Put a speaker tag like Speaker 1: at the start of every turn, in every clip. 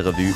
Speaker 1: Revue.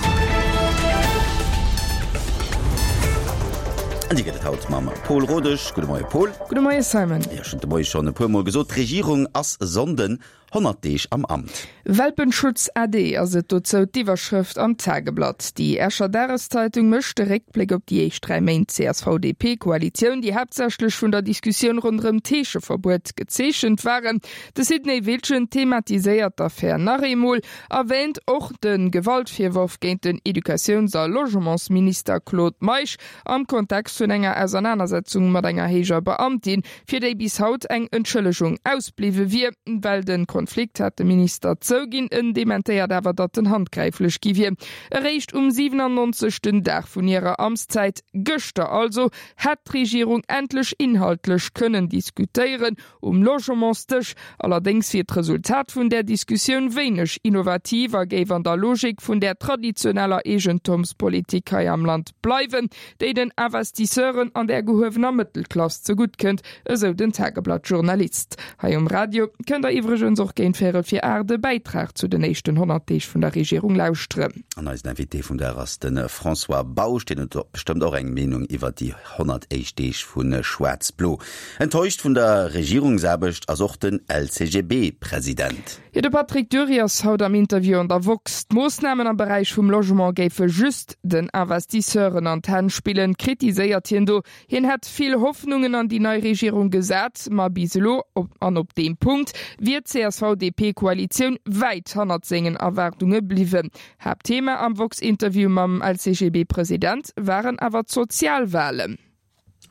Speaker 1: An déi gëtt et haut mam Paul Rodesch. Gudde Moie Paul.
Speaker 2: Gudde Moie Simon.
Speaker 1: Jo, ech hunn de Moie schonn e puer Mol gesot, d'Regierung ass e Sonnden 100 Deeg am Amt.
Speaker 2: Welpenschutz ade ass et dozou d'Iwwerschrëft am Tageblatt. Déi Escher Dageszeitung mécht de Réckbléck op déi éischt 3 Méint CSV-DP-Koalitioun, déi haaptsächlech vun der Diskussioun ronderëm d'Heescheverbuet gezeechent waren. De Sidney Wiltgen thematiséiert d'Affär nach eemol. Erwäänt och de Gewaltvirworf géint den Educatiouns a Logementsminister Claude Meisch am Kontext vun enger Ausernanersetzung mat enger héijer Beamtin, fir déi bis haut eng Entschëllegung ausbliwwe wier. Well de Konflikt hat de Minister zouginn, en dementéiert awer, datt en handgräiflech gi wier. Eréischt um 97. Dag vun hirer Amtszäit, gëschter also, hätt d'Regierung endlech inhaltlech kënnen diskutéieren, Um Logementsdësch allerdéngs wier d'Resultat vun där Diskussioun wéineg innovativ a géif an der Logik vun där traditioneller Eegentumspolitik hei am Land bleiwen, déi den Investisseuren an der gehuewener Mëttelklass zegutt kënnt, esou den Tageblatt-Journalist. Hei um Radio kënnt der iwwregens och géint véierel vir 8 e Bäitrag zu den éischten 100 Deeg vun der Regierung lauschteren.
Speaker 1: An eisen Invité vum Dag ass de François Bausch. Deen huet bestëmmt och eng Meenung iwwert déi 100 éischt Deeg vu Schwaarz-Blo. Enttäuscht vun der Regierungsaarbecht ass och den LCGB-President.
Speaker 2: Jo, de Patrick Dury ass haut am Interview an der woxx. D'Moossnamen am Beräich vum Logement géife just den Investisseuren an d'Hänn spillen, kritiséiert hien do. Hien hätt vill Hoffnungen an déi nei Regierung gesat, ma bis elo, an op deem Punkt, wier d'CSV-DP-Koalitioun wäit hannert sengen Erwaardunge bliwwen. Haaptthema am woxx-Interview mam LCGB-President waren awer d'Sozialwalen.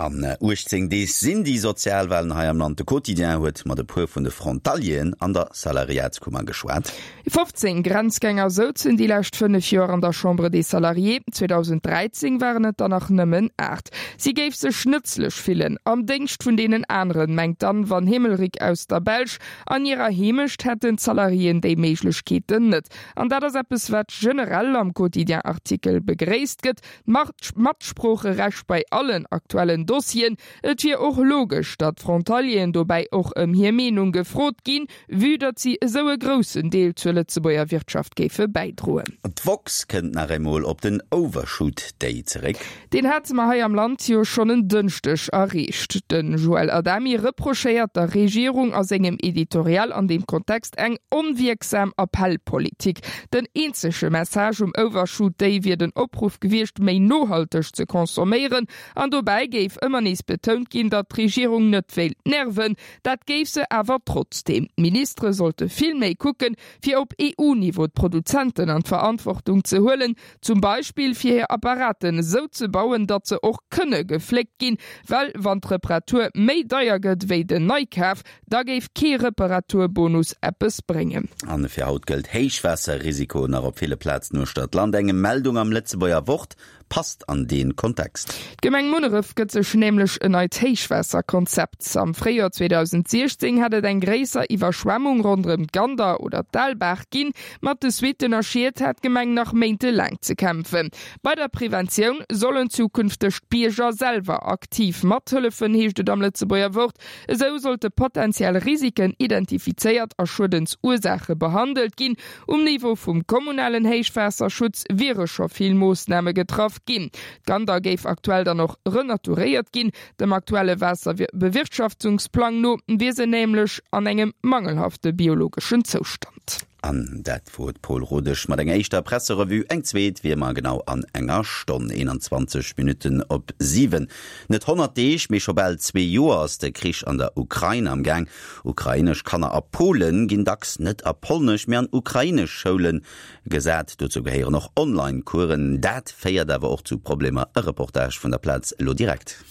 Speaker 1: An 18 Deeg sinn déi Sozialwalen hei am Land. De Quotidien huet mat e puer vun de Frontalieren an der Salariatskummer geschwat.
Speaker 2: 15 Grenzgänger souzen déi lescht 5 Joer an der Chambre des Salariés. 2013 waren et der nach nëmmen 8. Si géif sech nëtzlech fillen am Déngscht vun deenen aneren, mengt d'Anne Van Hemelryck aus der Belsch. An hirer Heemecht hätten d'Salariéen déi Méiglechkeeten net. An dat ass eppes, wat generell am Quotidien-Artikel begréisst gëtt. D'Matsproocherecht bei allen aktuellen Dossieren. Et wier och logesch, datt d'Frontalieren dobäi och ëm hir Meenung gefrot ginn, vue datt si esou e groussen Deel zur Lëtzebuerger Wirtschaft géife bäidroen.
Speaker 1: D'woxx kënnt nach eemol op den Overshoot Day zeréck.
Speaker 2: Deen hate mer hei am Land jo schonn en Dënschdeg erreecht. De Joël Adami reprochéiert der Regierung a sengem Editorial an deem Kontext eng onwierksam Appellpolitik. Den eenzege Message um Overshoot Day wier den Opruff gewiescht, méi nohalteg ze consomméieren. An dobäi géif ëmmer nees betount ginn, datt d'Regierung net wéilt nerven. Dat géif se awer trotzdeem. D'Ministere sollte vill méi kucken, fir op EU-Niveau d'Produzenten an d'Verantwortung ze huelen, zum Beispill fir hir Apparaten esou ze bauen, datt se och kënne gefléckt ginn, well wann d'Reparatur méi deier gëtt wéi den Neikaf, Da géif kee Reparaturbonus eppes bréngen.
Speaker 1: An fir haut gëllt Héichwaasserrisiko nach op ville Plazen uechter d'Land. Eng Meldung am Lëtzebuerger Wort passt an dee Kontext.
Speaker 2: D'Gemeng Munneref gëtt sech nämlech en neit Héichwaasserkonzept. Am Fréijoer 2016 hat et eng gréisser Iwwerschwemmung ronderëm d'Gander oder d'Aalbaach ginn. Mat de Suitten a Schied hat d'Gemeng nach méintelaang ze kämpfen. Bei der Preventioun sollen zukünfteg d'Bierger selwer aktiv mathëllefen, heescht et am Lëtzebuerger Wort. Esou sollte potentiell Risiken identifizéiert a Schuedensursaache behandelt ginn. Um Niveau vum kommunalen Héichwaasserschutz wiere scho vill Moossname getraff ginn. D'Gander géif aktuell dann och renaturéiert ginn. Dem aktuelle Waasserbewirtschaftungsplang no wier se nämlech an engem mangelhafte biologeschen Zoustand.
Speaker 1: An dat wor d'Paul Rodesch mat enger éischter Presserevue. Eng zweet wier mer genau an enger Stonn, 21 Minutten op 7. Net 100 Deeg, mee scho bal zwee Joer ass de Krich an der Ukrain am Gaang. Ukrainesch Kanner a Polen ginn dacks net a polnesch, mee an ukrainesch Schoule gesat. Dozou gehéieren och Online-Coursen. Dat féiert awer och zu Problemer. E Reportage vun der Plaz elo direkt.